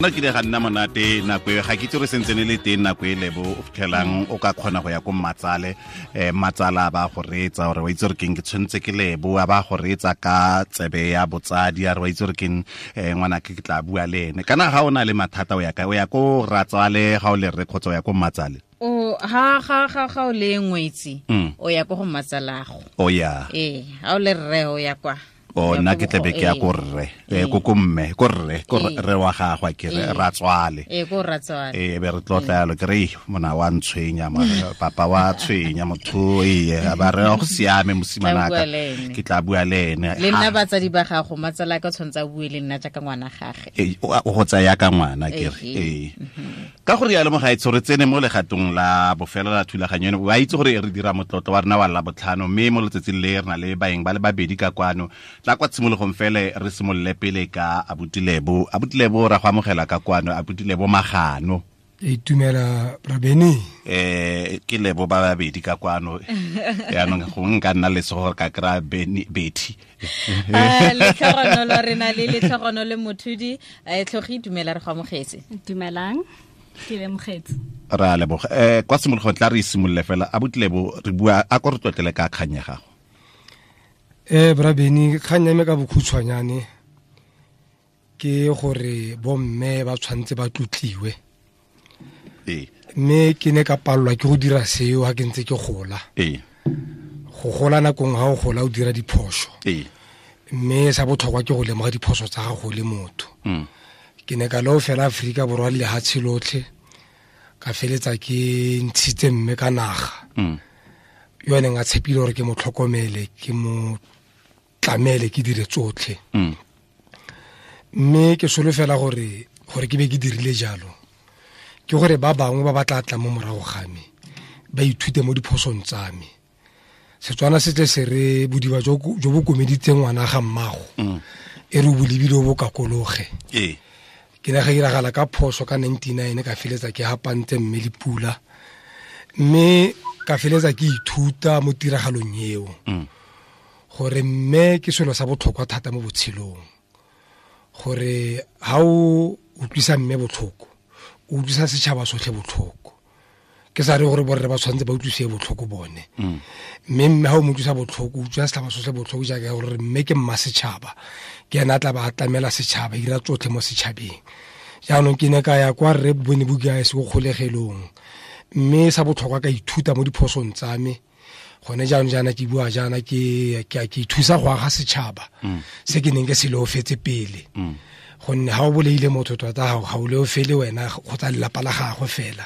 Nna kile ga nna monate nako e, ga ke itse gore sentse ne le teng nako e lebo o fitlhelang o ka kgona go ya ko mmatsale, matsala ba go reetsa gore wa itse gore keng ke tshwanetse ke lebo, a ba go reetsa ka tsebe ya botsadi, a re wa itse gore keng, ngwana ke tla bua le ene. Kana ga o na le mathata o ya kae? O ya ko ratswale ga o le rre kgotsa o ya ko mmatsale? O ha ga ga ga o le ngwetsi, o ya ko go mmatsalago. O ya. Ee, ha o le rre o ya kwa. O nna ke tlebe ke ya ko rre, ko ko mme, ko rre, ko rre wa gagwe ke re ratswale. Ee, ko ratswale. Ee, be re tlotla yalo, ke re, mona wa ntshwenya, papa wa tshwenya motho, ee, ba re go siame mosimanaka. Ke tla bua le ene. Le nna batsadi ba gago, matsala ka tshwantse a bue le nna jaaka ngwana gage. Ee, o go tsaya ka ngwana ke re. Ee. Ka gore ya lemoga e tshore tsene mo legatong la bofelo la thulaganyo eno, wa itse gore re dira motlotlo wa rena wa Labotlhano, mme mo letsatsing le re na le baeng ba le babedi ka kwano. Tla kwa tshimologong fele re simolole pele ka Abuti Lebo. Abuti Lebo, ra go amogela ka kwano. Abuti Lebo Magano. E itumela Rabeni. Ke Lebo ba babedi ka kwano. Yaanong gongwe nka nna lesego gore ka kry-a Beni, Betty. Letlhogonolo re na le letlhogonolo le mothudi. Tlhogi, dumela, re go amogetse. Dumelang, ke lemogetse. Ra leboga. Kwa tshimologong tla re simolole fela. Abuti Lebo, re bua a ko re tlotlele ka kgang ya gago. Bra Beni, kgang ya me ka bokhutshwanyane ke gore bomme ba tshwanetse ba tlotliwe. Mme ke ne ka palelwa ke go dira seo ha ke ntse ke gola. Go gola nakong ha o gola o dira diphoso. Mme sa botlhokwa ke go lemoga diphoso tsa gago le motho. Ke ne ka leo fela Aforika Borwa le lehatshe lotlhe, ka feletsa ke ntshitse mme ka naga. Yo a neng a tshepile gore ke mo tlhokomele, ke mo tlamele, ke dire tsotlhe. Mme ke solofela gore ke be ke dirile jalo, ke gore ba bangwe ba ba tla tla mo morago ga me ba ithute mo diphosong tsa me. Setswana se tle se re bodiba jo bo komeditseng ngwana ga mmago, e re o bo lebile o bo kakologe. Ke ne ga iragala ka phoso ka 99, ka feletsa ke hapantse mme le pula, mme ka feletsa ke ithuta mo tiragalong eo. Gore mme ke selo sa botlhokwa thata mo botshelong, gore ha o utlwisa mme botlhoko, o utlwisa setšhaba sotlhe botlhoko. Ke sa re gore borre ba tshwanetse ba utlwisiwe botlhoko bone. Mme mme ha o mo utlwisa botlhoko, o utlwisa setšhaba sotlhe botlhoko, jaaka gore mme ke mma setšhaba, ke ena a tla ba a tlamela setšhaba, ira tsotlhe mo setšhabeng. Jaanong ke ne ka ya kwa rre Bone Bukae se ko kgolegelong, mme sa botlhokwa ka ithuta mo diphosong tsa me. Gone jaanong jaana ke bua jaana ke ithusa go aga setšhaba se ke neng ke se leofetse pele. Gonne ha o bolaile motho tota ga o leofele wena kgotsa lelapa la gagwe fela.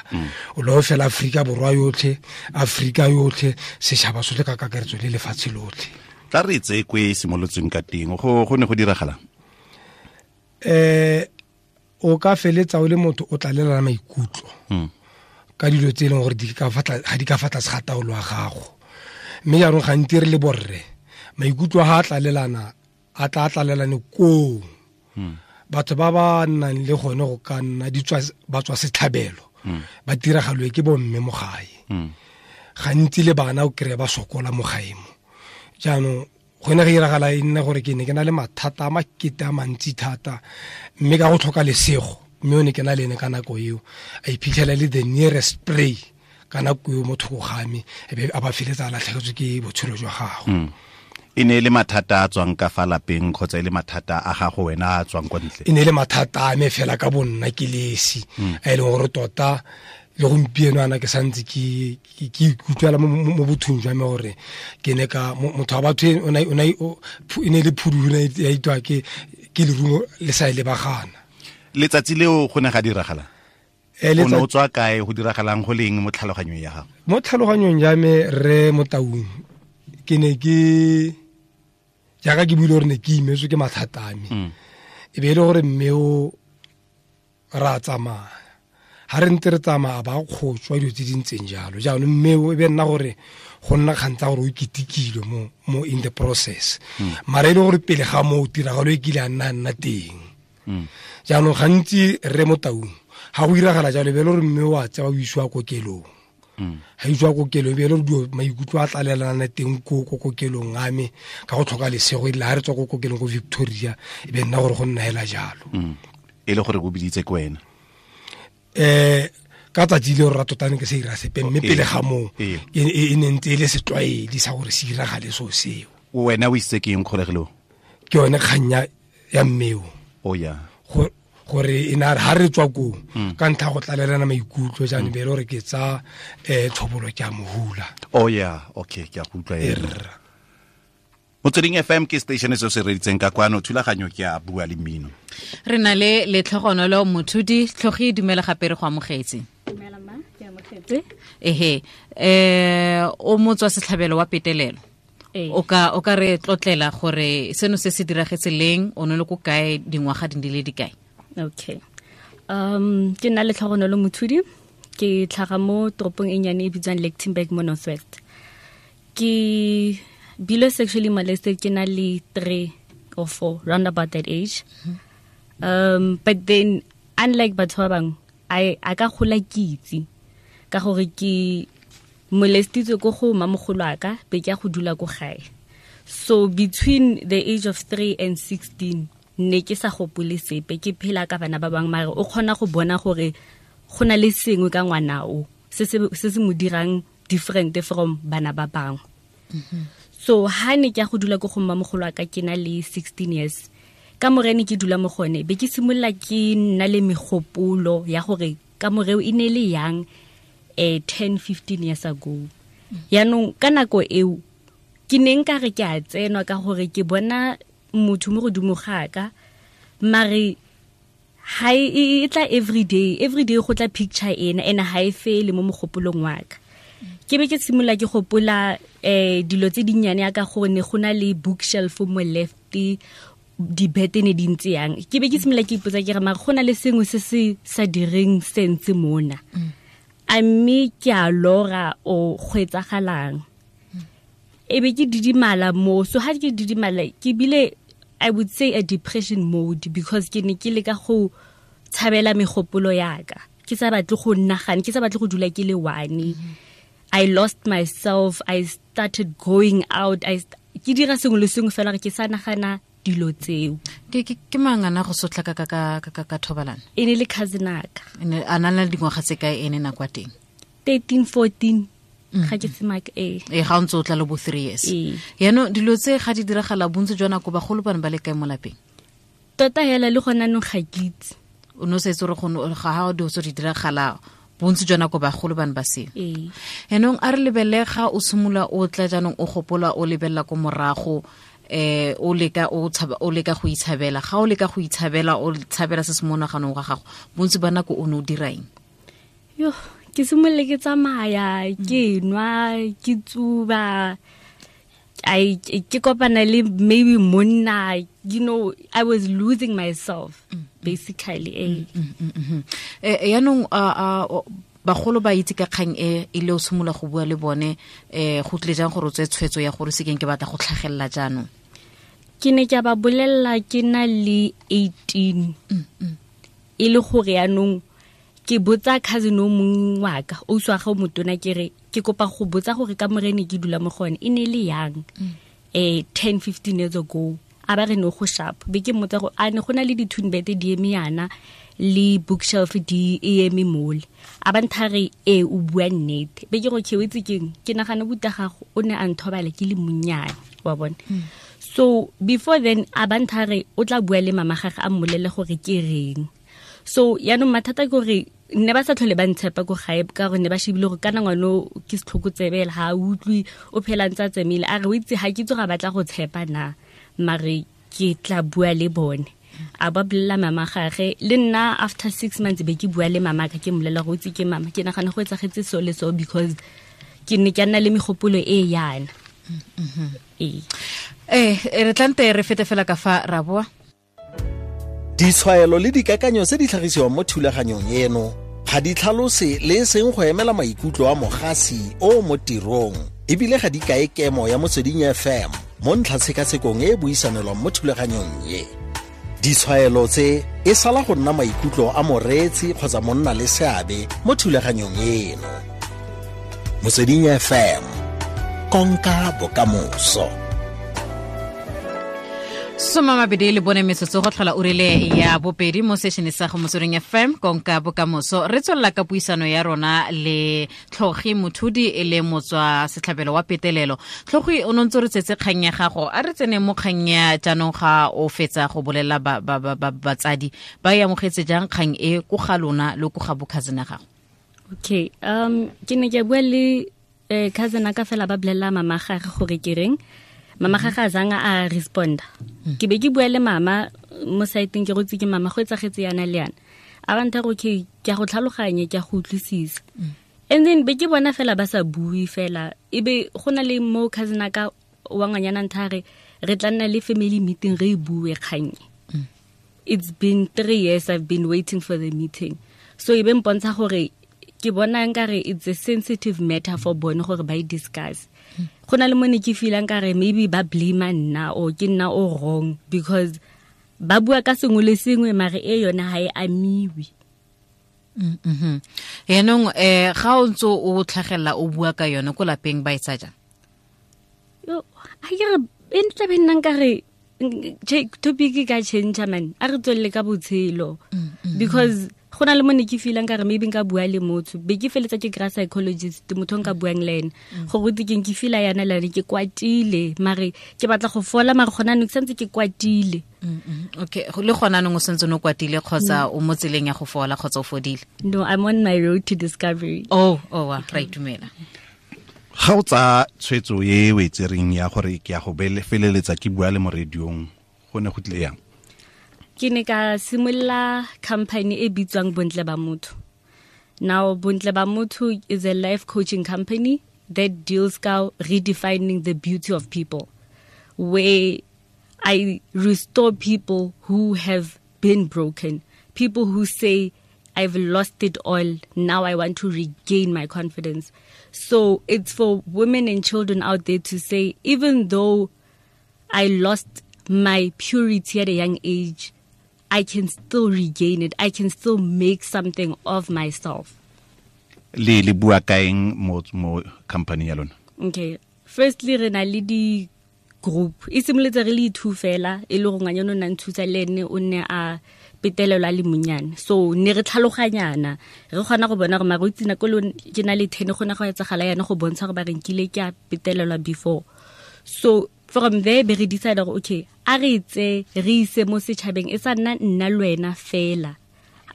O leofela Aforika Borwa yotlhe, Aforika yotlhe, setšhaba sotlhe ka kakaretso le lefatshe lotlhe. Tla re tseye ko e simolotsweng ka teng, go ne go diragalang? O ka feletsa o le motho o tlalelana maikutlo ka dilo tse e leng gore ga di ka fa tlase ga taolo ya gago. Mme jaanong gantsi re le borre, maikutlo a tlalelana, a tla tlalelane koo. Batho ba ba nnang le gone go ka nna ba tswa setlhabelo, ba tiragalwe ke bomme mo gae. Gantsi le bana o kry-e ba sokola mo gae mo. Jaanong go ne go iragala e nne gore ke ne ke na le mathata a makete a mantsi thata, mme ka go tlhoka lesego, mme o ne ke na le ene ka nako eo, a iphitlhela le the nearest prey ka nako eo mo thoko ga me, e be a ba feletsa a latlhegetswe ke botshelo jwa gagwe. E ne e le mathata a tswang ka fa lapeng kgotsa e le mathata a gago wena a tswang kwa ntle? E ne e le mathata a me fela ka bonna ke le esi, a e leng gore tota le gompieno ana ke santse ke ikutlwela mo bothong jwa me gore ke ne ka, motho wa batho e, o ne, o ne, o, phu, e ne e le phudu, o ne ya itwa ke lerumo le sa e lebagana. Letsatsi leo go ne ga diragala? O ne o tswa kae, go diragalang go leng mo tlhaloganyong ya gago? Mo tlhaloganyong ya me, rre Motaung, ke ne ke, jaaka ke buile gore ne ke imetswe ke mathata a me. E be e le gore mme o ra tsamaya. Ha re ntse re tsamaya ba kgotswa dilo tse di ntseng jalo. Jaanong mme o e be nna gore go nna kgang tsa gore o ketekilwe mo in the process. Mara e le gore pele ga moo tiragalo e kile a nna teng. Jaanong gantsi rre Motaung ha go iragala jalo, e be e le gore mme o a tsewa o isiwa kokelong. Ha isiwa kokelong, e be e le gore dilo maikutlo a tlalelana teng ko kokelong a me ka go tlhoka lesego, e rile ha re tswa ko kokelong ko Victoria, e be nna gore go nna hela jalo. E le gore go biditse ke wena. Ka tsatsi le rra tota ne ke se ira sepe, mme pele ga moo e ne ntse e le setlwaedi sa gore se iragale so seo. Wena o isitse ke eng kgolegelong? Ke yone kgang ya mmeo. O ya. Gore e na ha re tswa koo ka ntlha go tlalelana maikutlo jaanong be e le gore ke tsa tlhobolo ke a mohula. Oh yeah, okay, ke a go utlwa ena. Motsweding FM ke station se se reditseng ka kwano, thulaganyo ke a bua le mmino. Re na le Letlhogonolo Mothudi. Tlhogi, dumela gape, re go amogetse. Dumela ma, ke amogetse. Ehe, o motswa setlhabelo wa petelelo. O ka re tlotlela gore seno se se diragetse leng, o ne le ko kae, dingwaga di le dikae? Okay. Ke nna Letlhogonolo Mothudi, ke tlhaga mo toropong e nnyane e bitswang Lichtenburg mo North West. Ke bile sexually molested ke na le 3 or 4, round about that age. But then unlike batho ba bangwe, a ka gola ke itse ka gore ke molestitswe ko go mamogolo a ka be ke ya go dula ko gae. So between the age of 3 and 16 ne ke sa gopole sepe, ke phela ka bana ba bangwe, mare o kgona go bona gore go na le sengwe ka ngwana o se se mo dirang different from bana ba bangwe. So ha ne ke ya go dula ko go mmamogolo wa ka ke na le 16 years, ka morene ke dula mo gone be ke simolola ke nna le megopolo ya gore ka moreo e ne le yang 10 15 years ago. Yaanong ka nako eo ke ne nka re ke a tsenwa ka gore ke bona motho mo godimo ga ka, mare ha e tla everyday go tla picture ena ena ha e fele mo mogopolong wa ka. Ke be ke simolola ke gopola dilo tse dinnyane ya ka gore ne go na le bookshelf mo left, dibete ne di ntse yang. Ke be ke simolola ke ipotsa ke re mare go na le sengwe se se sa direng sense mona, a mme ke a lora o go etsagalang. E be ke didimala mo, so ha ke didimala ke bile I would say a depression mode, because ke ne ke leka go tshabela megopolo ya ka, ke sa batle go nagana, ke sa batle go dula ke le one. I lost myself, I started going out, ke dira sengwe le sengwe fela ke sa nagana dilo tseo. Ke mang ana go sotla ka ka ka ka thobalano? E ne le cousin aka. Ene a na le dingwaga tse kae ene nako ya teng? 13 14. Ga ke semaka e. E ga o ntse o tla le bo 3 years. Yaanong dilo tse ga di diragala bontsi jwa nako bagolo bane ba le kae mo lapeng? Tota hela le gona nong ga ke itse. O ne o sa itse gore ga ha dilo tse di diragala bontsi jwa nako bagolo bane ba seo. Yaanong a re lebelele ga o simolola o tla jaanong o gopola o lebelela ko morago, o leka o tshaba, o leka go itshabela. Ga o leka go itshabela, o tshabela se se mo naganong ga gago, bontsi ba nako o ne o dira eng? Yo, ke simolole ke tsamaya, ke nwa, ke tsuba, ke kopana le maybe monna, you know, I was losing myself basically. Yaanong bagolo ba itse ka kgang e le o simolola go bua le bone, go tlile jang gore o tseye tshwetso ya gore se keng ke batla go tlhagelela jaanong? Ke ne ke ba bolelela ke na le 18. E le gore yaanong ke botsa cousin o mongwe wa ka, o uswa ga o motona, ke re ke kopa go botsa gore ka morene ke dula mo gone e ne le yang 10 15 years ago. A ba re no go sharp, be ke mmotsa gore a ne go na le di-twin bed di eme yana le bookshelf di eme mole. A ba ntha re e o bua nnete, be ke go ke o itse keng, ke nagana buta gago o ne a nthobala ke le monnyane wa bone. So before then a ba ntha re o tla bua le mama gagwe a mmolele gore ke reng. So yaanong mathata ke gore ne ba sa tlhole ba ntshepa ko gae ka gore ne ba shebile gore kana ngwana ke setlhokotsebela, ha a utlwe, o phela ntse a tsemile. A re o itse ha ke itse ga batla go tshepa na, mare ke tla bua le bone. A ba bolelela mama gage, le nna after 6 months be ke bua le mama ka, ke mmolelela gore o itse ke mama, ke nagana go etsagetse so le so because ke ne ke nna le megopolo e yana. Re tlante re fete fela ka fa ra boa. Ditshwaelo le dikakanyo tse di tlhagisiwang mo thulaganyong eno ga di tlhalose le e seng go emela maikutlo a mogasi o mo tirong, ebile ga di kae kemo ya Motsweding FM mo ntlhatshekatshekong e e buisanelwang mo thulaganyong e. Ditshwaelo tse e sala go nna maikutlo a moreetsi kgotsa monna le seabe mo thulaganyong eno. Motsweding FM, konka bokamoso. 24 metsotso go tlhola urile ya bobedi mo sešene sa go Motsweding FM konka bokamoso. Re tswelela ka puisano ya rona le Tlhogi Mothudi e le motswa setlhabelo wa petelelo. Tlhogi, o ne ntse re tsetse kgang ya gago, a re tsene mo kgang ya jaanong ga o fetsa go bolela batsadi ba e amogetse jang kgang e ko ga lona le ko ga bo cousin ya gago? Okay, ke ne ke bua le cousin ka fela ba bolelela mama gage gore ke reng. Mama ga ga zanga a responda. Ke be ke bua le mama mo saeteng, ke rotse ke mama go etsagetse yana le yana. A ba ntha gore okay, ke a go tlhaloganya, ke a go utlwisisa. And then be ke bona fela ba sa bue fela. E be go na le mo cousin ka wa ngwanyana ntha re re tla nna le family meeting re bue kgang. It's been 3 years I've been waiting for the meeting. So e be mpontsha gore ke bona nkare it's a sensitive matter for bone gore ba e discuss. Go na le mo ne ke feelang kare maybe ba blame nna or ke nna o wrong because ba bua ka sengwe le sengwe mare e yona ha e amiwe. Yaanong ga o ntse o tlhagelela o bua ka yone ko lapeng ba e tsa jang? Yo, a ke re e ntla be nna nkare topic ka change man, a re tswelele ka botshelo because go na le mo ne ke feelang kare maybe nka bua le motho be ke feletsa ke kry psychologist motho nka buang le ene gore ke ke feela yana le ke kwatile mare ke batla go fola mare gona ne ke santse ke kwatile. Okay, le gona nong o santse no kwatile kgotsa o mo tseleng ya go fola kgotsa o fodile? No, I'm on my road to discovery. Oh, wa ra itumela. Ga o tsa tshwetso e o e tsereng ya gore ke ya go feleletsa ke bua le mo radiong, go ne go tlile yang? Ke ne ka simolola company e bitswang Bontle Ba Motho. Now Bontle Ba Motho is a life coaching company that deals ka redefining the beauty of people, where I restore people who have been broken, people who say I've lost it all, now I want to regain my confidence. So it's for women and children out there to say, even though I lost my purity at a young age, I can still regain it. I can still make something of myself. Le bua kaeng mo company ya lona? Okay. Firstly, re na le di group. E simolotse re le two fela, e le go ngwanyana o nna nthusa le ene o ne a petelelwa le monyane. So ne re tlhaloganyana, re kgona go bona gore mare o itse nako le ke na le 10 go na go etsagala yana go bontsha gore ba re nkile ke a petelelwa before. So from there be re decide gore okay, a re tse re ise mo setšhabeng e sa nna nna le wena fela,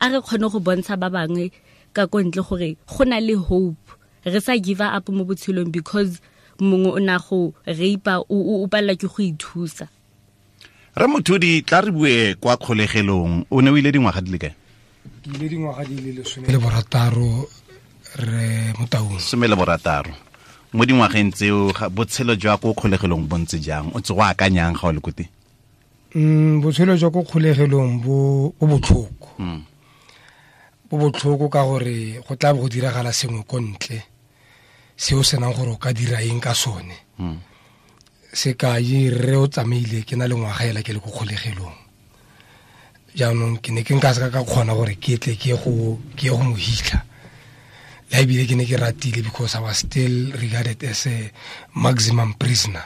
a re kgone go bontsha ba bangwe ka ko ntle gore go na le hope, re sa give up mo botshelong because mongwe o na go rape o palelwa ke go ithusa. Re Mothudi, tla re bue kwa kgolegelong, o ne o ile dingwaga di le kae? Ke ile dingwaga di le 16 re Motaung. 16. Mo dingwageng tseo botshelo jwa ko kgolegelong bo ntse jang? O tse go akanyang ga o le ko teng? Botshelo jwa ko kgolegelong bo botlhoko. Bo botlhoko ka gore go tla bo go diragala sengwe ko ntle seo senang gore o ka dira eng ka sone. Sekai, rre o tsamaile ke na le ngwaga ela ke le ko kgolegelong. Jaanong ke ne ke nka seka ka kgona gore ke tle ke go mo hitlha. Le ebile ke ne ke ratile because I was still regarded as a maximum prisoner.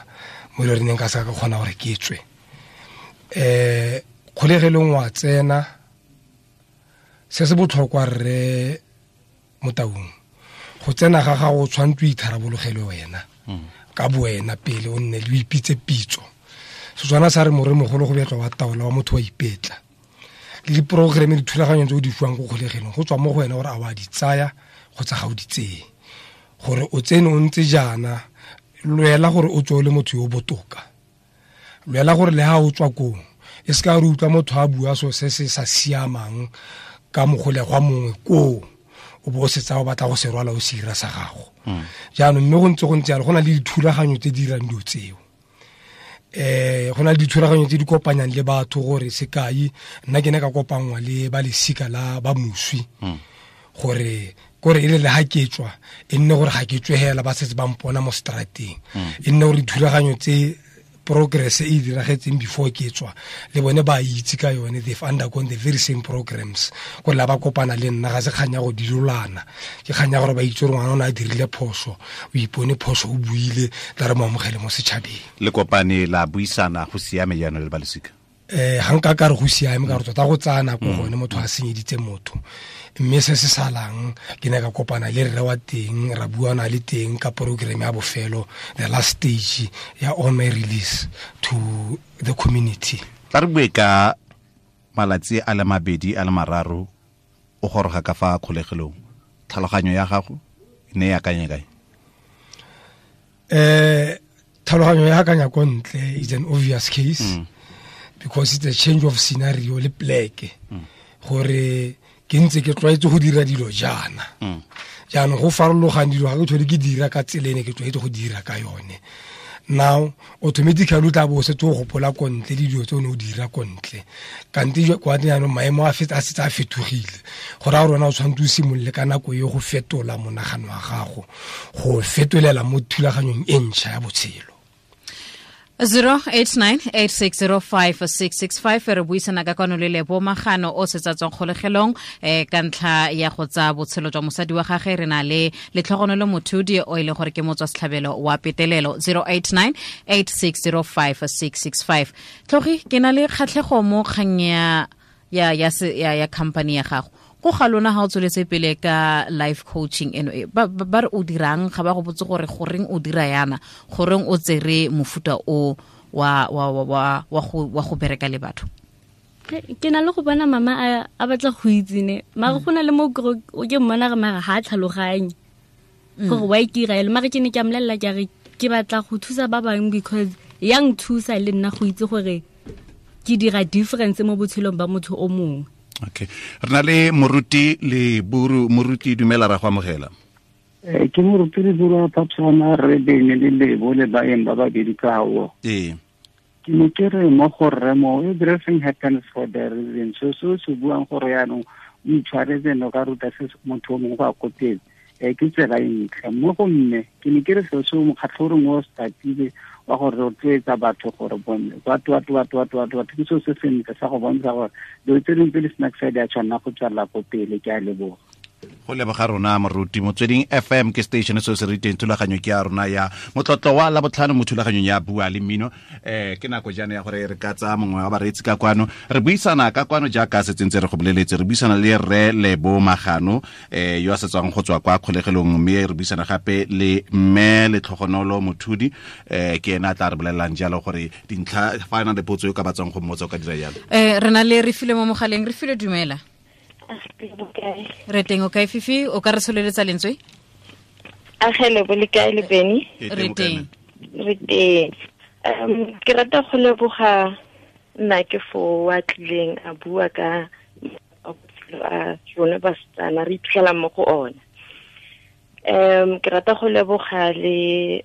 Mo le re neng ka seka ka kgona gore ke tswe. Kgolegelong wa tsena, se se botlhokwa rre Motaung, go tsena ga gago o tshwanetse o itharabologelwe wena ka bowena pele, o nne le o ipitse pitso. Setswana sa re moremogolo go betlwa wa taola wa motho wa ipetla. Le diprogereme dithulaganyo tse o di fiwang ko kgolegelong go tswa mo go wena gore a wa di tsaya kgotsa ga o di tseye. Gore o tsene o ntse jaana, lwela gore o tswe o le motho yo o botoka. Lwela gore le ha o tswa koo, e se ka re utlwa motho a bua so se se sa siamang ka mogolegwa mongwe koo, o bo o setsa o batla go se rwala o se ira sa gago. Jaanong mme go ntse jalo, go na le dithulaganyo tse di dirang dilo tseo. Go na le dithulaganyo tse di kopanyang le batho gore sekai, nna ke ne ka kopanngwa le ba lesika la ba moswi gore kore e le le ha ke tswa, e nne gore ga ke tswe hela ba setse ba mpona mo strateng. E nne gore dithulaganyo tse Progress e diragetseng before ke tswa le bone ba itse ka yone, they've undergone the very same programs. Go la ba kopana le nna ga se kganya go dilolana, ke kganya gore ba itse gore ngwana o ne a dirile phoso, o ipone phoso, o buile, tla re mo amogele mo setšhabeng. Le kopane la buisana, go siame jaanong le balosika? Ga nka ka re go siame, ka gore tota go tsaya nako gone motho a senyeditse motho. Mme se se salang, ke ne ka kopana le rre wa teng, ra buana le teng ka program ya bofelo, the last stage ya on my release to the community. Tla re bue ka malatsi a le 2 a le 3 o goroga ka fa kgolegelong, tlhaloganyo ya gago e ne e akanya kae? Tlhaloganyo ya akanya ko ntle is an obvious case, because it's a change of scenario le pleke, gore ke ntse ke tlwaetse go dira dilo jaana. Jaanong go farologana dilo, ga ke tlhole ke dira ka tsela e ne ke tlwaetse go dira ka yone. Now automatically o tla bo o setse o gopola ko ntle le dilo tse o ne o dira ko ntle, kante kwa jaanong maemo a setse a fetogile, go raya gore wena o tshwanetse o simolole ka nako e go fetola monagano wa gago, go fetolela mo thulaganyong e ntšha ya botshelo. 0898605665 re buisana ka kwano le Lebo Magano o setsa tswang kgolegelong ka ntlha ya go tsaya botshelo jwa mosadi wa gagwe. Re na le Letlhogonolo Mothudi o e leng gore ke motswa setlhabelo wa petelelo. 0898605665. Tlhogi, ke na le kgatlhego mo kgang ya company ya gago. Ko ga lona ga o tsweletse pele ka life coaching eno e, ba re o dirang, ga ba go botse gore goreng o dira yana, goreng o tsere mofuta o wa go bereka le batho? Ke na le go bona mama a batla go itse ne, mara go na le mo o ke mmona re mara ha tlhaloganye gore wa ikira elo, mara ke ne ke a mmolelela ke re ke batla go thusa ba bangwe because ya nthusa le nna go itse gore ke dira difference mo botshelong ba motho o mongwe. Okay. Re na le Moruti Leburu. Moruti, dumela, ra go amogela. Ke Moruti Leburu wa Phapsana, re bene le Lebo le baeng ba babedi ka hao. Ee. Ke ne ke re mo go rre mo, everything happens for the reason. So se se buang gore yaanong o itshwaretse no ka ruta se motho o mongwe go a ko pele. Ke tsela e ntle. Mo go mme, ke ne ke re seo se mokgatlho o reng o startile wa go rotloetsa batho gore bone batho ke seo se sentle sa go bontsha gore dilo tse dingwe tse di snack side ya tshwanela go tswelela ko pele. Ke a leboga. Go leboga rona Moruti. Motsweding FM ke station se se riteng thulaganyo ke ya rona ya motlotlo wa Labotlhano mo thulaganyong ya Bua le Mmino. Ke nako jaana ya gore re ka tsaya mongwe wa bareetsi ka kwano, re buisana ka kwano jaaka se tsentse re go boleletse, re buisana le rre Lebo Magano yo a setswang go tswa kwa kgolegelong, mme re buisana gape le mme Letlhogonolo Mothudi, ke ena a tla re bolelelang jalo gore dintlha fa a na le potso yo ka batswang go mmotsa o ka dira jalo. Re na le Refilwe mo mogaleng. Refilwe, dumela. Re teng, o kae Fifi? O ka re tsholeletsa lentswe? Agele bo le kae le Benny? Re teng. Re teng. Ke rata go leboga nna ke fo wa tlileng a bua ka a rona basetsana re iphitlhelang mo go ona. Ke rata go leboga le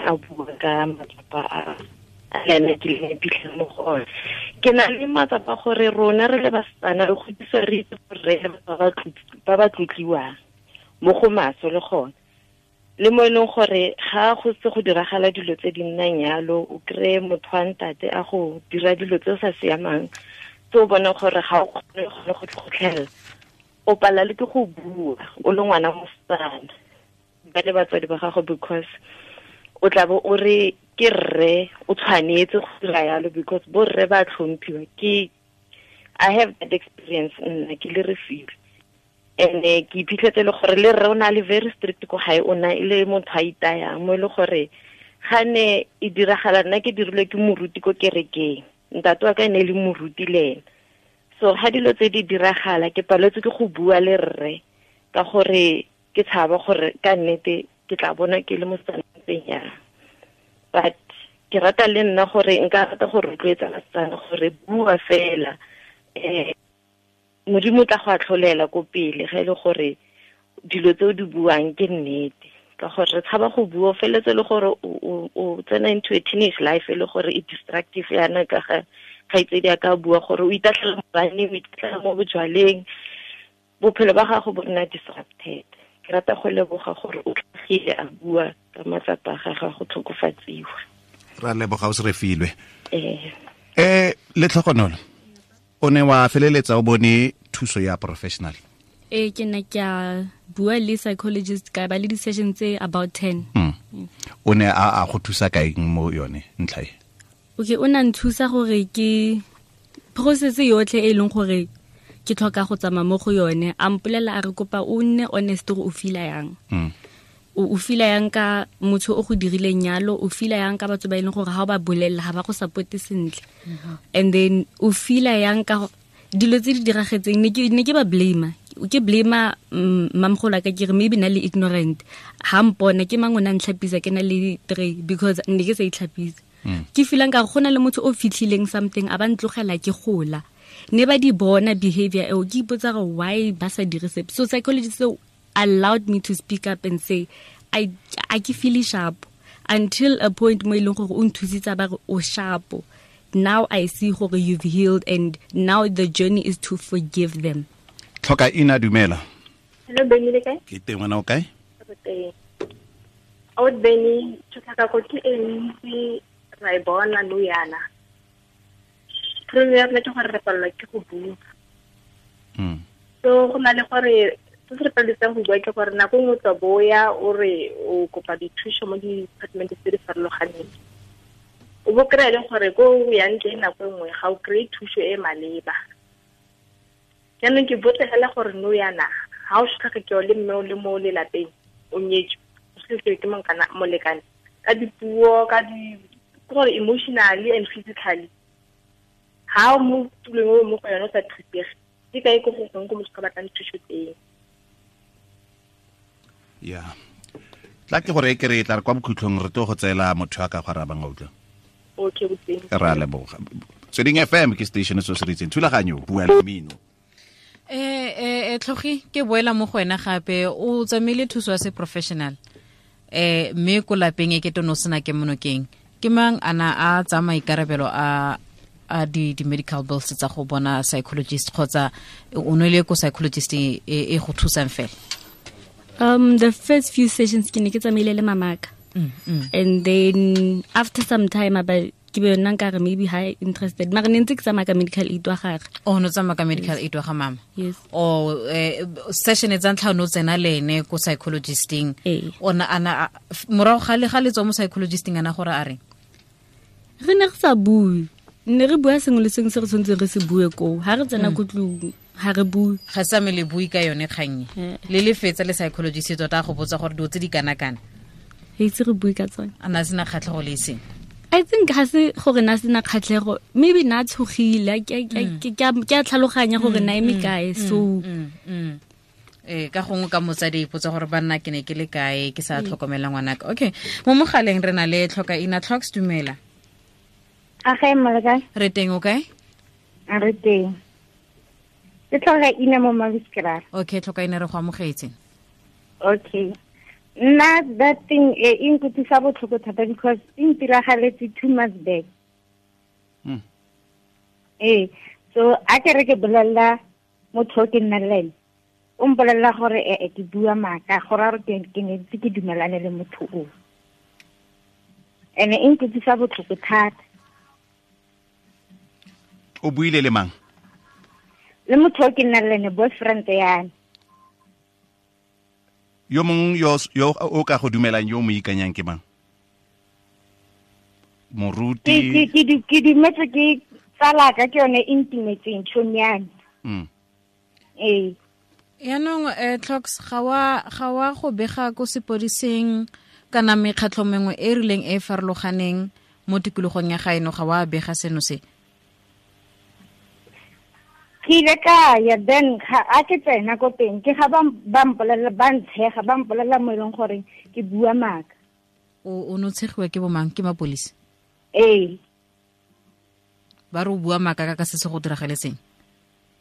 a bua ka matsapa a le ene ke le iphitlhela mo go ona. Ke na le matsapa gore rona re le basetsana re godiswa re itse gore re le ba ba tlotliwang mo go maswe le gone, le mo e leng gore ga go se go diragala dilo tse di nnang yalo, o kry-e motho wa ntate a go dira dilo tse o sa siamang tse o bonang gore ga o kgone go tlhotlhelela, o pala le ke go bua o le ngwana mosetsana ba le batswadi ba gago, because o tla bo o re ke rre o tshwanetse go dira yalo because bo rre ba tlhomphiwa. Ke I have that experience nna ke le Refilwe, and ke iphitlhetse le gore le rre o na le very strict ko gae, o na e le motho a itayang mo e le gore ga ne e diragala nna ke dirilwe ke moruti ko kerekeng, ntate wa ka e ne e le moruti le ena. So ga dilo tse di diragala ke paletswe ke go bua le rre ka gore ke tshaba gore ka nnete ke tla bona ke le mosetsana ntseng yang. But ke rata le nna gore nka rata go rotloetsa basetsana gore bua fela, Modimo tla go atlholela ko pele ga e le gore dilo tse o di buang ke nnete, ka gore re tshaba go bua, o feletse le gore o tsena into a teenage life e le gore e destructive yana ka ga kgaitsedi a ka bua gore o itatlhela mo baneng, o itatlhela mo bojwaleng, bophelo ba gago bo nna disrupted. Ke rata go leboga gore o tlhagile a bua ka matsapa a gagwe go tlhokofatsiwa. Ra leboga o se re filwe. Letlhogonolo, o ne wa feleletsa o bone thuso ya professional? Ke ne ke a bua le psychologist ka ba le di-session tse about 10. O ne a go thusa kaeng mo yone ntlha e? Okay, o na nthusa gore ke process yotlhe e leng gore ke tlhoka go tsamaya mo go yone. A mpolelela a re kopa o nne honest gore o feela yang. O feela yang ka motho o go dirileng yalo, o feela yang ka batho ba e leng gore ha o ba bolelela ha ba go supporte sentle. And then o feela yang ka dilo tse di diragetseng, ne ke ba blame. Ke blame mamgolo ka ke re maybe na le ignorant. Ha mpona ke mang o na ntlhapisa ke na le 3 because ne ke sa itlhapisa. Ke feelang ka go na le motho o fitlhileng something a ba ntlogela ke gola. Ne ba di bona behavior eo, ke ipotsa gore why ba sa dire sepe. So psychologist allowed me to speak up and say I ke feel sharp until a point mo e leng gore o nthusitse ba re o sharp. Now I see gore you've healed and now the journey is to forgive them. Tlhoka ina dumela. Hello Benny, le kae? Ke teng, wena o kae? Re teng. O Benny, tshotlakako ke e ntsi ra e bona nou yana. Problem ya rona ke gore re palelwa ke go bua. So go na le gore se se re paleletsang go bua ke gore nako nngwe o tla boya o re o kopa dithuso mo di-department tse di farologaneng. O bo kry-a e leng gore ko o yang teng nako nngwe ga o kry-e thuso e maleba. Jaanong ke botse fela gore nou yana ga o sotlhakekiwa le mme o le mo lelapeng o nyetswe, o sotlhakekiwa ke molekane ka dipuo, ka di gore emotionally and physically. Ha o mo tulong o mo go yone o sa thusege, ke kae ko go gongwe ko motho ka batlang thuso teng? Ya. Tla ke gore e ke re tla re kwa bokhutlhong re tlo go tseela motho a ka go arabang a utlwa. Okay, boteng. Ra leboga. Tsweding FM ke station se se ritseng thulaganyo bua le mmino. Tlhogi ke boela mo go wena gape, o tsamaile thuso ya se professional. Mme ko lapeng e ke tono sena ke monokeng. Ke mang ana a tsa maikarabelo a di medical bills tsa go bona psychologist kgotsa o nwele ko psychologist e go thusang fela? The first few sessions ke ne ke tsamaile le mamaka. And then after some time about ke be nna nka re maybe high interested. Mara ne ntse ke tsamaya ka medical aid wa gagwe. Oh, no tsamaya ka medical aid wa ga mama. Yes. Oh, session e tsa ntlha no tsena le ene ko psychologisting. Ona ana morago ga le ga le tswa mo psychologisting ana gore a reng? Re ne re sa bue. Ne re bua sengwe le sengwe se re tshwanetseng re se bue koo. Ha re tsena ko tlung, ha re bue. Ga sa me le bue ka yone kgang e. Le le fetsa le psychologist tota go botsa gore dilo tse di kana-kana. Re itse re bue ka tsone. A na sena kgatlhego le eseng? I think ga se gore na sena kgatlhego, maybe na tshogile, ke a tlhaloganya gore na eme kae, so ka gongwe ka motsadi ipotsa gore banna ke ne ke le kae ke sa tlhokomela ngwanaka. Okay, mo mogaleng re na le Tlhoka Ina. Tlhoks, dumela. A ga e kae? Re teng, o kae? A re teng. Ke Tlhoka Ina mo Maviskraal. Okay, Tlhoka Ina, re go amogetse. Okay. Nna that thing e nkutlwisa botlhoko thata because e ntiragaletse 2 months back. So a ke re ke bolelela motho o ke nnang le ene, o mpolelela gore ke bua maaka, gore a re ke ne ntse ke dumelane le motho o. Ene e nkutlwisa botlhoko thata. O buile le mang? Le motho o ke nnang le ene, boyfriend ya me. Yo mong yo o ka go dumelang, yo mo ikanyang ke mang? Moruti? Ke dumetse ke tsala ka ke yone intimate tšhomi ya me. Yaanong Tlhoks, ga wa go bega ko sepodiseng kana mekgatlho mengwe e rileng e farologaneng mo tikologong ya gaeno, ga wa bega seno se? Ke ile ka ya, then a ke tsena ko teng ke ga ba mpolelela, ba ntshega, ba mpolelela mo e leng gore ke bua maaka. O no tshegiwa ke bomang? Ke mapolisi? Ee. Ba re o bua maaka ka se se go diragaletseng?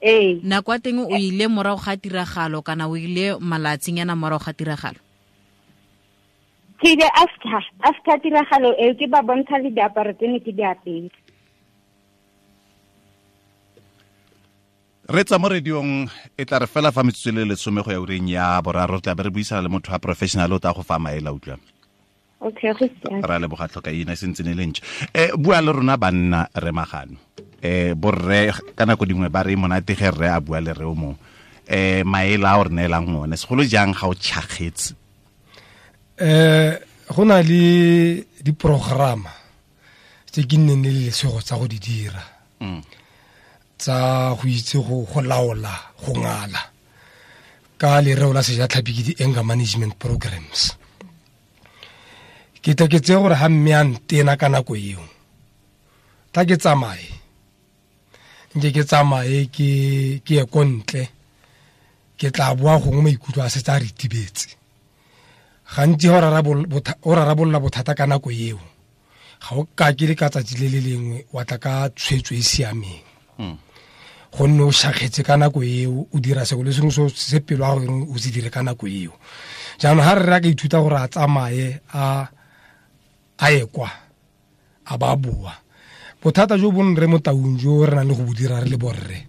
Ee. Nako ya teng o ile morago ga tiragalo kana o ile malatsinyana morago ga tiragalo? Ke ile after tiragalo eo, ke ba bontsha le diaparo tse ne ke di apere. Re tsa mo radiong e tla re fela fa metsotso le lesome go ya ureng ya boraro, tla be re buisana le motho wa professional o tla go fa maele, utlwa. Okay, go siame. Ra leboga, Tlhokaina, e sentse ne le ntšha. Bua le rona banna, re Magano. Borre ka nako dingwe ba re monate ge rre a bua le re o mongwe. Maele a o re neelang one, segolo jang ga o tšhakgetse? Go na le diprograma tse ke nneng le lesego tsa go di dira. Tsa go itse go laola, go ngala ka lereo la sejatlhapi ke di-anger management programs. Ke tla ke tseye gore ga mme a ntena ka nako eo, tla ke tsamaye, nke ke tsamaye ke ye ko ntle, ke tla boa gongwe maikutlo a setse a ritibetse. Gantsi ga o rarabolola bothata ka nako eo, ga o ka ke le ka tsatsi le le lengwe wa tla ka tshwetso e siameng. Gonne o shakgetse ka nako eo, o dira sengwe le sengwe se pelo ya gago o se dire ka nako eo. Jaanong ga rre a ka ithuta gore a tsamaye a ye kwa, a ba boa. Bothata jo bo nre mo taung jo re nang le go bo dira re le borre,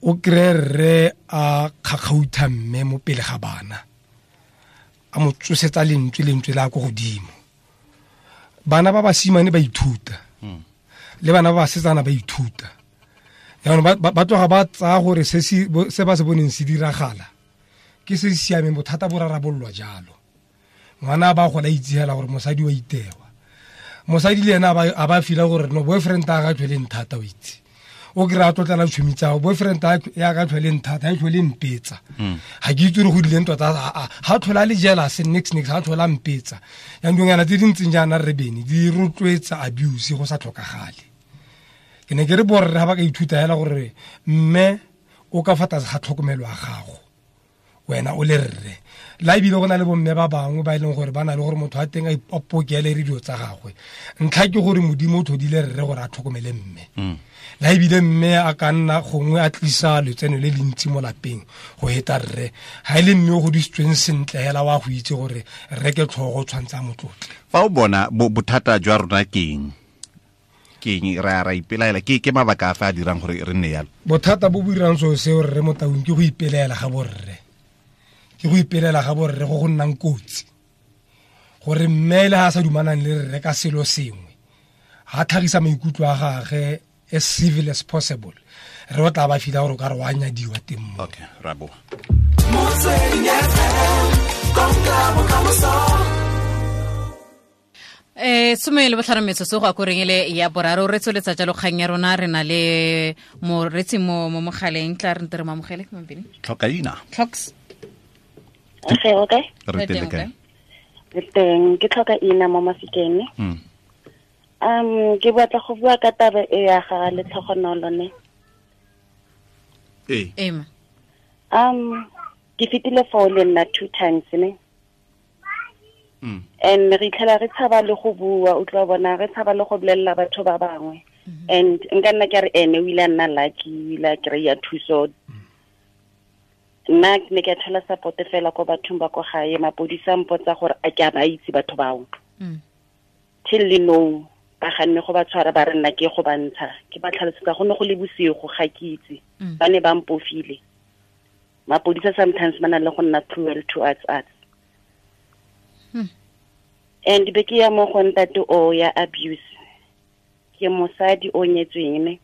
o kry-e rre a kgakgautha mme mo pele ga bana, a mo tsosetsa lentswe la ko godimo. Bana ba basimane ba ithuta, le bana ba basetsana ba ithuta. Jaanong ba tloga ba tsaya gore se ba se boneng se diragala ke se se siameng, bothata bo rarabololwa jalo. Ngwana ba gola itse hela gore mosadi wa itewa, mosadi le ena a ba fila gore no boyfriend a ga tlhole nthata, o itse. O kry-a tlotlela tšhomi tsa gago, boyfriend ya ka tlhole nthata, ha e tlhole mpetsa. Ga ke itse gore go dileng tota, ha tlhole a le jealous, nix, nix, ha tlhole a mpetsa. Jaanong dilonyana tse di ntseng jaana re bene, di rotloetsa abuse go sa tlhokagale. Ke ne ke re borre ga ba ka ithuta hela gore mme o ka fa tlase ga tlhokomelo ya gago, wena o le rre. La ebile go na le bomme ba bangwe ba e leng gore ba na le gore motho a teng a ipokele re dilo tsa gagwe. Ntlha ke gore Modimo o tlhodile rre gore a tlhokomele mme. La ebile mme a ka nna gongwe a tlisa letseno le le ntsi mo lapeng go heta rre. Ha e le mme o godisitsweng sentle hela wa go itse gore rre ke tlhogo o tshwanetse a mo tlotle. Fa o bona bothata jwa rona ke eng? Ke eng re a ra ipelaela? Ke mabaka a fa a dirang gore re nne yalo? Bothata bo bo dirang seo seo rre mo taung ke go ipelaela ga borre. Ke go ipelela ga borre go go nnang kotsi. Gore mme le ha a sa dumanang le rre ka selo sengwe, ha tlhagisa maikutlo a gagwe as civil as possible, re o tla ba fila gore o ka re wa nyadiwa teng mo. Okay, ra boa. Motsweding FM, konka bokamoso. Some le botlhano metsotso go akoreng ele ya boraro, re tsweletsa jalo kgang ya rona, re na le moretsi mo mogaleng, tla re nte re mo amogele, Mampini. Tlhokaina. Tlhoks. Okay, okay. Re teng kae? Re teng, ke Tlhokaina mo Mafikeng. Ke batla go bua ka taba e ya ga Letlhogonolo ne. Ee. Ee, ma. Ke fetile foo le nna 2 times ne. And re itlhela re tshaba le go bua, o tla bona re tshaba le go bolella batho ba bangwe. And nka nna ke re ene o ile a nna lucky, o ile a kry-a thuso. Nna ke ne ke thola support fela ko bathong ba ko gae, mapodisa a mpotsa gore a ke a ba itse batho bao. Till le nou, ba ganne go ba tshwara, ba re nna ke go ba ntsha. Ke ba tlhalosetsa go ne go le bosigo, ga ke itse. Ba ne ba mpofile. Mapodisa sometimes ba na le go nna cruel to us. And be ke ya mo go ntate o ya abuse. Ke mosadi o nyetsweng ne.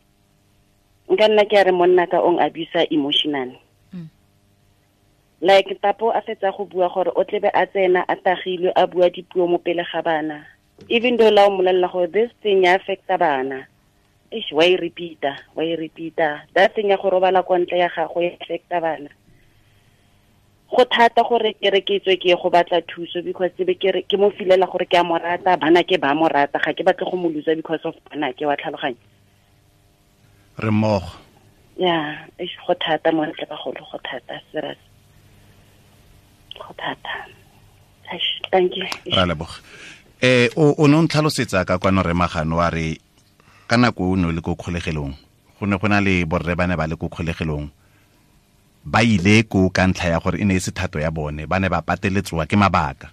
Nka nna ke a re monna ka ong abuse emotionally. Like papo a fetsa go bua gore o tlebe a tsena a tagilwe a bua dipuo mo pele ga bana. Even though la o mmolella gore this thing ya affecta bana. Eish, wa e repeat-a, wa e repeat-a. That thing ya go robala kwa ntle ya gago ya affecta bana. Go thata gore ke re ke tswe ke ye go batla thuso because be ke re ke mo filela gore ke a mo rata, bana ke ba mo rata, ga ke batle go mo loser because of bana ke wa tlhaloganya. Re mmogo. Ya, eish, go thata mo ntle bagolo, go thata, serious. Go thata. Eish, thank you. Ra leboga. O ne o ntlhalosetsa ka kwano re Magano wa re ka nako o ne o le ko kgolegelong, go ne go na le borre ba ne ba le ko kgolegelong, ba ile ko ka ntlha ya gore e ne e se thato ya bone, ba ne ba pateletsoa ke mabaka.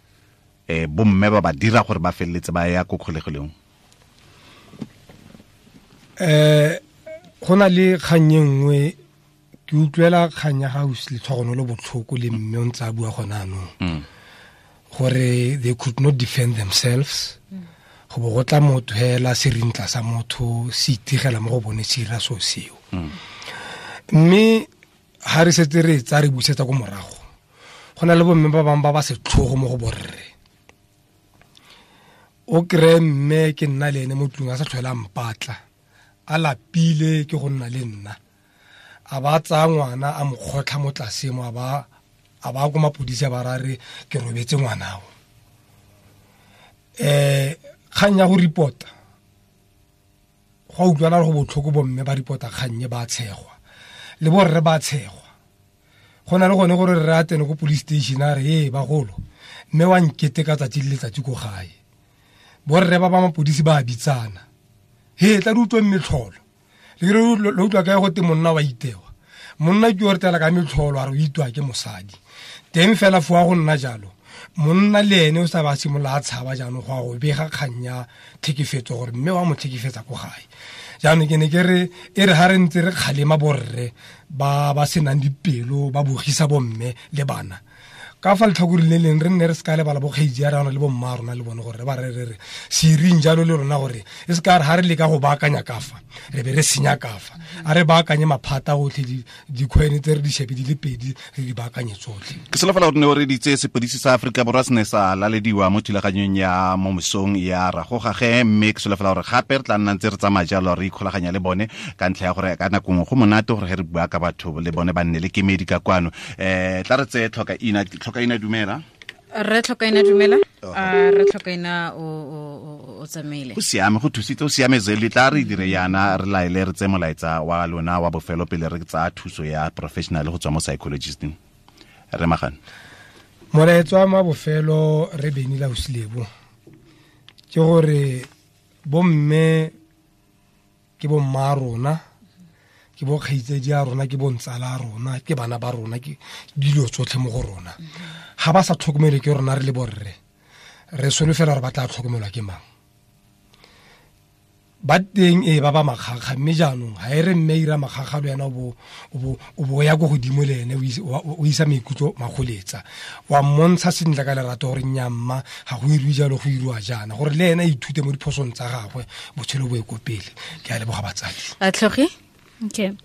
Bomme ba ba dira gore ba feleletse ba ya ko kgolegelong. Go na le kgang e nngwe ke utlwela kgang ya ga Letlhogonolo botlhoko le mme o ntse a bua gone anong gore they could not defend themselves. Go bo go tla motho hela serintla sa motho se itigela mo go bone se ira so seo. Mme ha re setse re tsa re busetsa ko morago, go na le bomme ba bangwe ba ba setlhogo mo go borre. O kry-e mme ke nna le ene mo tlung a sa tlhola mpatla, a lapile ke go nna le nna, a ba tsaya ngwana a mo kgotlha mo tlase mo, a ba ko mapodisi a ba ra re ke robetse ngwanao. Kgang ya go report-a, go a utlwana go botlhoko bomme ba report-a kgang e ba tshegwa, le borre ba tshegwa. Go na le gone gore re a tsene ko police station a re ee bagolo, mme wa nkete ka tsatsi le letsatsi ko gae. Borre ba ba mapodisi ba bitsana, he tla re utlweng metlholo. Le re utlwa kae gote monna wa itewa? Monna ke o re tela ka metlholo a re o itwa ke mosadi. Teng fela fo go nna jalo, monna le ene o sa ba simolola a tshaba jaanong go a go bega kgang ya tlhekefetso gore mme wa mo tlhekefetsa ko gae. Jaanong ke ne ke re e re ha re ntse re kgalema borre ba ba senang dipelo ba bogisa bomme le bana, ka fa letlhakoreng le leng re nne re se ka lebala bokgaitsi ya rona le bomma rona le bone gore ba re re re se ireng jalo le rona, gore e se ka re ha re leka go baakanya ka fa re be re senya ka fa. A re baakanye maphata otlhe, dikgwene tse re di shebe di le pedi re di baakanye tsotlhe. Ke solofela gore ne o reditse sepodisi sa Aforika Borwa se ne sa lalediwa mo thulaganyong ya mo mosong ya Ragogage, mme ke solofela gore gape re tla nna ntse re tsamaya jalo re ikgolaganya le bone ka ntlha ya gore ka nako nngwe go monate gore ge re bua ka batho le bone ba nne le kemedi ka kwano. Tla re tseye Tlhokaina dumela. Re Tlhokaina dumela. Re Tlhokaina o tsamaile. Go siame, go thusitse, o siame Zeli. Tla re dire yana re laele re tse molaetsa wa lona wa bofelo pele re tsaya thuso ya professional go tswa mo psychologisting. Re magane. Molaetsa wa bofelo re Beni la Osilebo ke gore bomme ke bomma rona, ke bo kgaitsedi a rona, ke bontsala a rona, ke bana ba rona, ke dilo tsotlhe mo go rona. Ga ba sa tlhokomelwe ke rona re le borre, re solofela gore ba tla tlhokomelwa ke mang? Ba teng e ba ba makgakga, mme jaanong ga e re mme ira makgakga le wena o bo ya ko godimo le ene o isa maikutlo magoletsa, wa mmontsha sentle ka lerato gore nnyamma ga go irwe jalo, go irwa jaana, gore le ene a ithute mo diphosong tsa gagwe, botshelo bo ye ko pele. Ke a leboga batsadi. A tlhoge? Okay.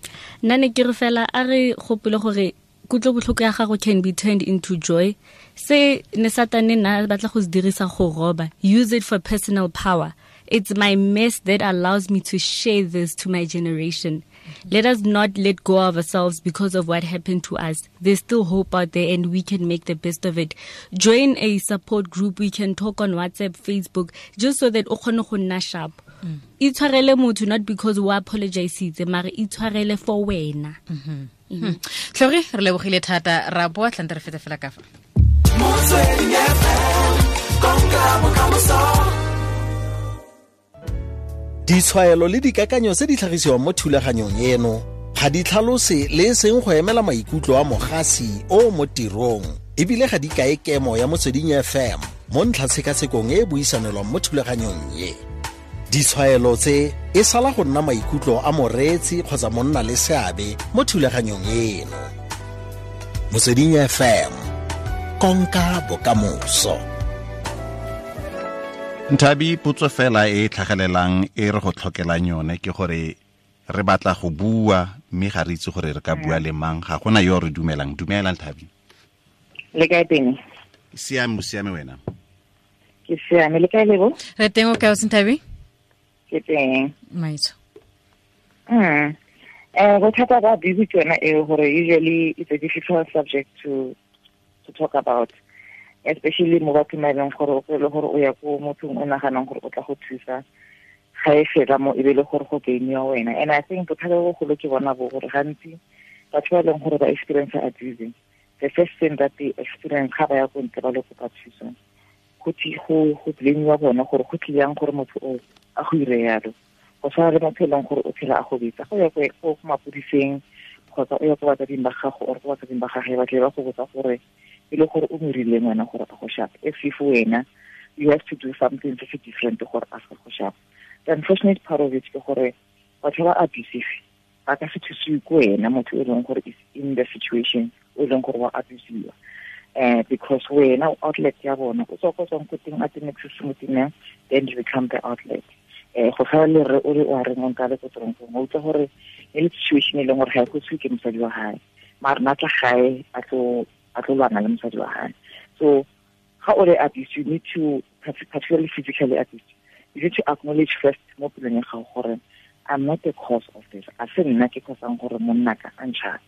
Nna ne ke re fela a re gopole gore kutlobotlhoko ya gago can be turned into joy. Se ne Satane nna batla go se dirisa go roba. Use it for personal power. It's my mess that allows me to share this to my generation. Let us not let go of ourselves because of what happened to us. There's still hope out there and we can make the best of it. Join a support group. We can talk on WhatsApp, Facebook, just so that o kgone go nna sharp. Itshwarele motho not because o apologisitse, mare itshwarele for wena. Tlhogi, re lebogile thata, ra boa tlante re fete fela ka fa. Ditshwaelo le dikakanyo tse di tlhagisiwang mo thulaganyong eno ga di tlhalose le e seng go emela maikutlo a mogasi o mo tirong, ebile ga di kae kemo ya Motsweding FM mo ntlhatshekasekong e e buisanelwang mo thulaganyong e. Ditshwaelo tse e sala go nna maikutlo a moreetsi kgotsa monna le seabe mo thulaganyong eno. Motsweding FM, konka bokamoso. Nthabi, potso fela e tlhagelelang e re go tlhokelang yone ke gore re batla go bua mme ga re itse gore re ka bua le mang, ga gona yo re dumelang. Dumela Nthabi. Le kae teng? Siame, siame wena. Ke siame, le kae Lebo? Re teng, o kae o Nthabi? Ke teng. Maitso. Bothata ba busy ke yona eo gore usually it's a difficult subject to talk about, especially mo bathong ba e leng gore o kry-e gore o ya ko mothong o naganang gore o tla go thusa, ga e fela mo e be le gore go gainiwa wena. And I think bothata bo bogolo ke bona bo gore gantsi batho ba e leng gore ba experience abusing, the first thing that they experience ga ba ya ko ntle ba le kopa thuso, go blame-iwa bona gore go tlile yang gore motho o a go ire yalo. Go tshwana le motho e leng gore o phela a go betsa, go ya ko mapodiseng kgotsa o ya ko batsading ba gago or ko batsading ba gage, ba tle ba go botsa gore e le gore o morileng wena gore a go shapa. If wena you have to do something se se different gore a se go shapa. The unfortunate part of it ke gore batho ba abusive Ba ka se thusiwe ko wena motho e leng gore is in the situation o e leng gore wa abusiwa, because wena o outlet ya bona, o tswa ko tswang ko teng a teng se sengwe teng, then you become the outlet. Go tshwana le re o re o a reng o nka le ko toronkong, o utlwa gore e le situation e leng gore ga e kosiwe ke mosadi wa gae, mare na tla gae a tlo lwana le mosadi wa gae. So ga o le abused, you need to, particularly physically abused, you need to acknowledge first mo pelong ya gago gore I'm not the cause of this. A se nna ke causang gore monna ka a ntšhape.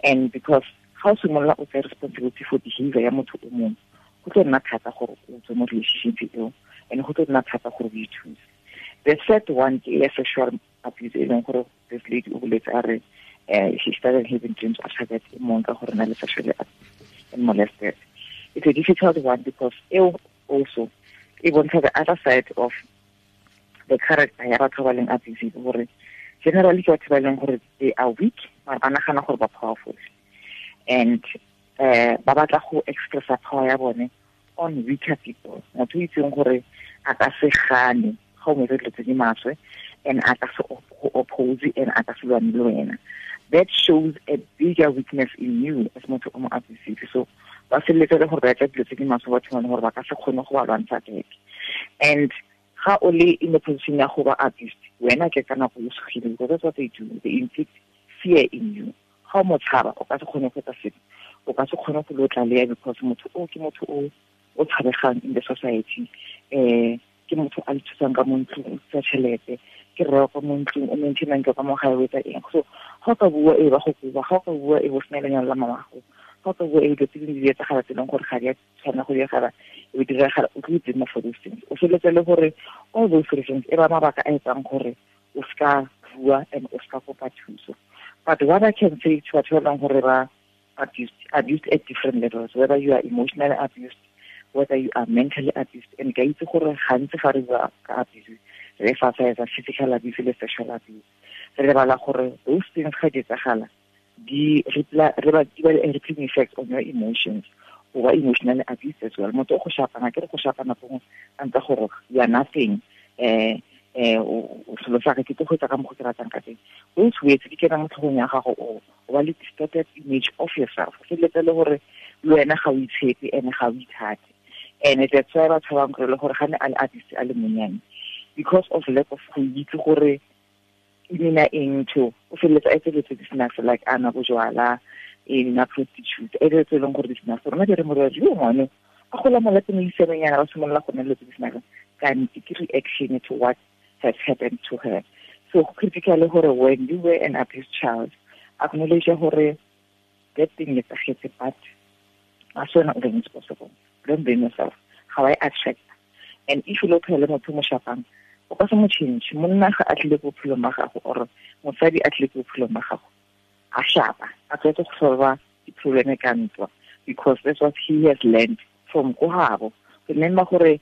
And because ga o simolola o tsaya responsibility for behavior ya motho o mongwe, go tlo nna thata gore o tswe mo relationship eo, and go tlo nna thata gore o ithuse. The third one ke ya sexual abuse, e leng gore this lady o boletse a re she started having dreams after that, e mong ka gore na le sexually abused and molested. It's a difficult one because eo also e bontsha the other side of the character ya batho ba leng abusive, gore generally ke batho ba leng gore they are weak, mara ba nagana gore ba powerful, and ba batla go expressa power ya bone on weaker people. Motho o itseng gore a ka se gane ga o mo etsa dilo tse di maswe, and a ka se go oppose, and a ka se lwane le wena. That shows a bigger weakness in you as motho o mo abusive. So ba feleletse le gore ba etsa dilo tse di maswe batho ba gore ba ka se kgone go ba lwantsha back. And ga o le in the position ya go ba abused, wena ke ka nako o sogile, because that's what they do. They inflict fear in you. Ga o mo tshaba, o ka se kgone go etsa sepe, o ka se kgone go lo tlaleya, because motho o ke motho o tshabegang in the society. Ke motho a le thusang ka mo ntlong, o tsa tšhelete, ke rre ka mo ntlong, o maintainang ka mo gae, o etsa eng. So ga o ka bua e ba go koba, ga o ka bua e bo sena lenyalo la mamago, ga o ka bua e dilo tse dingwe di etsagala tse e leng gore ga di a tshwanela go diragala, e be diragala, o tlo blame for those things. O feleletse le gore all those reasons e ba mabaka a etsang gore o ska bua and o ska kopa thuso. But what I can say to batho ba leng gore ba abused at different levels, whether you are emotionally abused, whether you are mentally abused, and ka itse gore gantsi ga re bua ka abuse, re emphasize physical abuse le sexual abuse, re lebala gore those things ga di etsagala, di ba le rippling effect on your emotions, o ba emotionally abused as well. Motho o go shapana, ke re go shapana gongwe a ntse gore you are nothing, o selo sa ke tlo go etsa ka mokgwa ke ratang ka teng. Those words di kena mo tlhogong ya gago, o ba le distorted image of yourself. O feleletse le gore le wena ga o itshepe and ga o ithate. And that's why batho ba bangwe le gore ga ne a le abused a le monnyane, because of lack of go itse gore e nna eng to, o feleletse a etsa di snacks like ana bojwala, e nna prostitute, e tse leng gore di snacks. Rona di re morwadi yo ngwane a gola mo lapeng le isemenyana, ba simolola go nna le tse di snacks, kante ke reaction to what has happened to her. So critically gore when you were an abused child, acknowledge gore that thing is a but as soon as it's possible, don't blame yourself. How I attract. And if you look at motho mo shapang, o ka se mo change. Monna ga a tlile ko bophelong ba gago, or mosadi a tlile ko bophelong ba gago, a shapa, a tlwaetse go solva di-problem ka ntwa, because that's what he has learned from ko gabo. Remember gore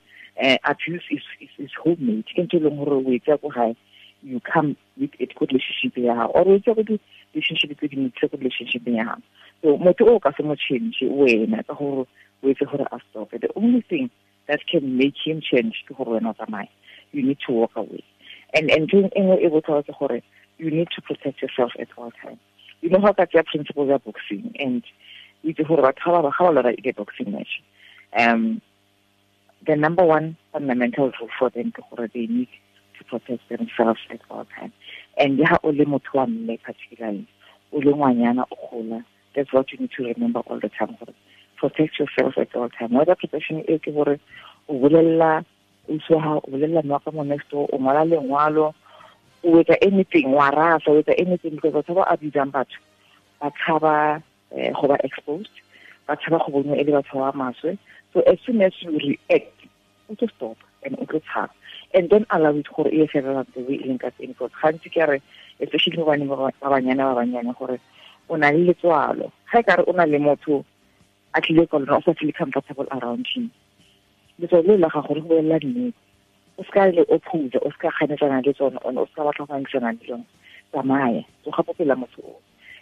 abuse is homemade. Ke ntho e leng gore o e tsaya ko gae, you come with it ko relationship ya gago, or o e tsaya ko di-relationship tse dingwe ko relationship ya gago. So motho o ka se mo change wena ka gore o etse gore a stop. The only thing that can make him change ke gore wena o tsamaye. You need to walk away. And ntho e nngwe e botlhokwa ke gore you need to protect yourself at all times. You know how ka tsaya principles ya boxing, and o itse gore batho ga ba lora e boxing match, the number one fundamental rule for them ke gore they need to protect themselves at all times. And ha o le motho wa mme particularly, o le ngwanyana o gola, that's what you need to remember all the time. Protect yourself at all time. Whether protection e ke gore o bolella o tsoha, o bolella mma ka mo next door, o ngwala lengwalo, o etsa anything, wa rasa, o etsa anything, because batho ba abusang batho ba tshaba go ba exposed, ba tshaba go bonwa e le batho ba maswe. So as soon as you react, o tlo stop and o tlo tshaba, and don't allow it gore e felela the way e leng ka teng. Because gantsi ke re, especially mo baneng ba banyana ba banyane, gore o na le letswalo. Ga e kare o na le motho a tlile ka lona, o sa feel comfortable around him, letswalo le la gago le go bolelela nnete, o seka le oppose, o seka ganetsana le tsone, o seka batla go ngangisana le tsone. Tsamaya, tsoga po pela motho o.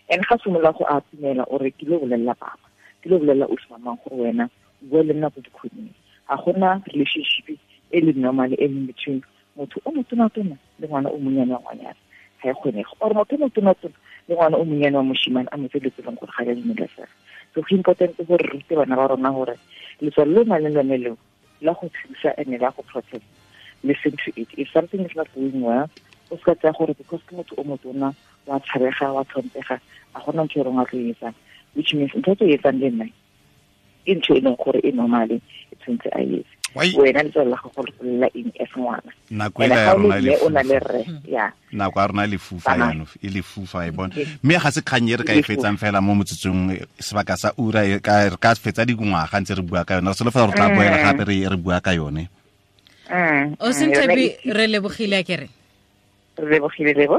And ga simolola go atumela, o re ke lo bolelela papa, ke lo bolelela ausi mamang gore wena o bua le nna ko dikhoneng. Ga gona relationship e le normal e leng between motho o motona-tona le ngwana o monnyane wa ngwanyana. Ga e kgonege or motho motona tona le ngwana o monnyane wa moshimane a motse dilo tse leng gore ga di a dumelesega. So go important gore re rute bana ba rona gore letswalo le o nang le lone leo la go thusa and la go protect, listen to it. If something is not going well, o se ka tsaya gore because ke motho o motona wa tshabega wa tlhompega a gona ntho e reng wa tlo e etsang, which means ntho e tlo e etsang le nna ke ntho e leng gore e normale e tshwanetse a etse. Wena letswalo la gago le golela eng as ngwana? Nako ela ya rona e o na le rre ya nako ya rona e lefufa jaanong e lefufa e bona, mme ga se kgang e re ka e fetsang fela mo motsotsong sebaka sa ura e re ka fetsa dingwaga ntse re bua ka yone. Re solofela gore tla boela gape re bua ka yone. O senthabi, re lebogile a kere re lebogile lebo.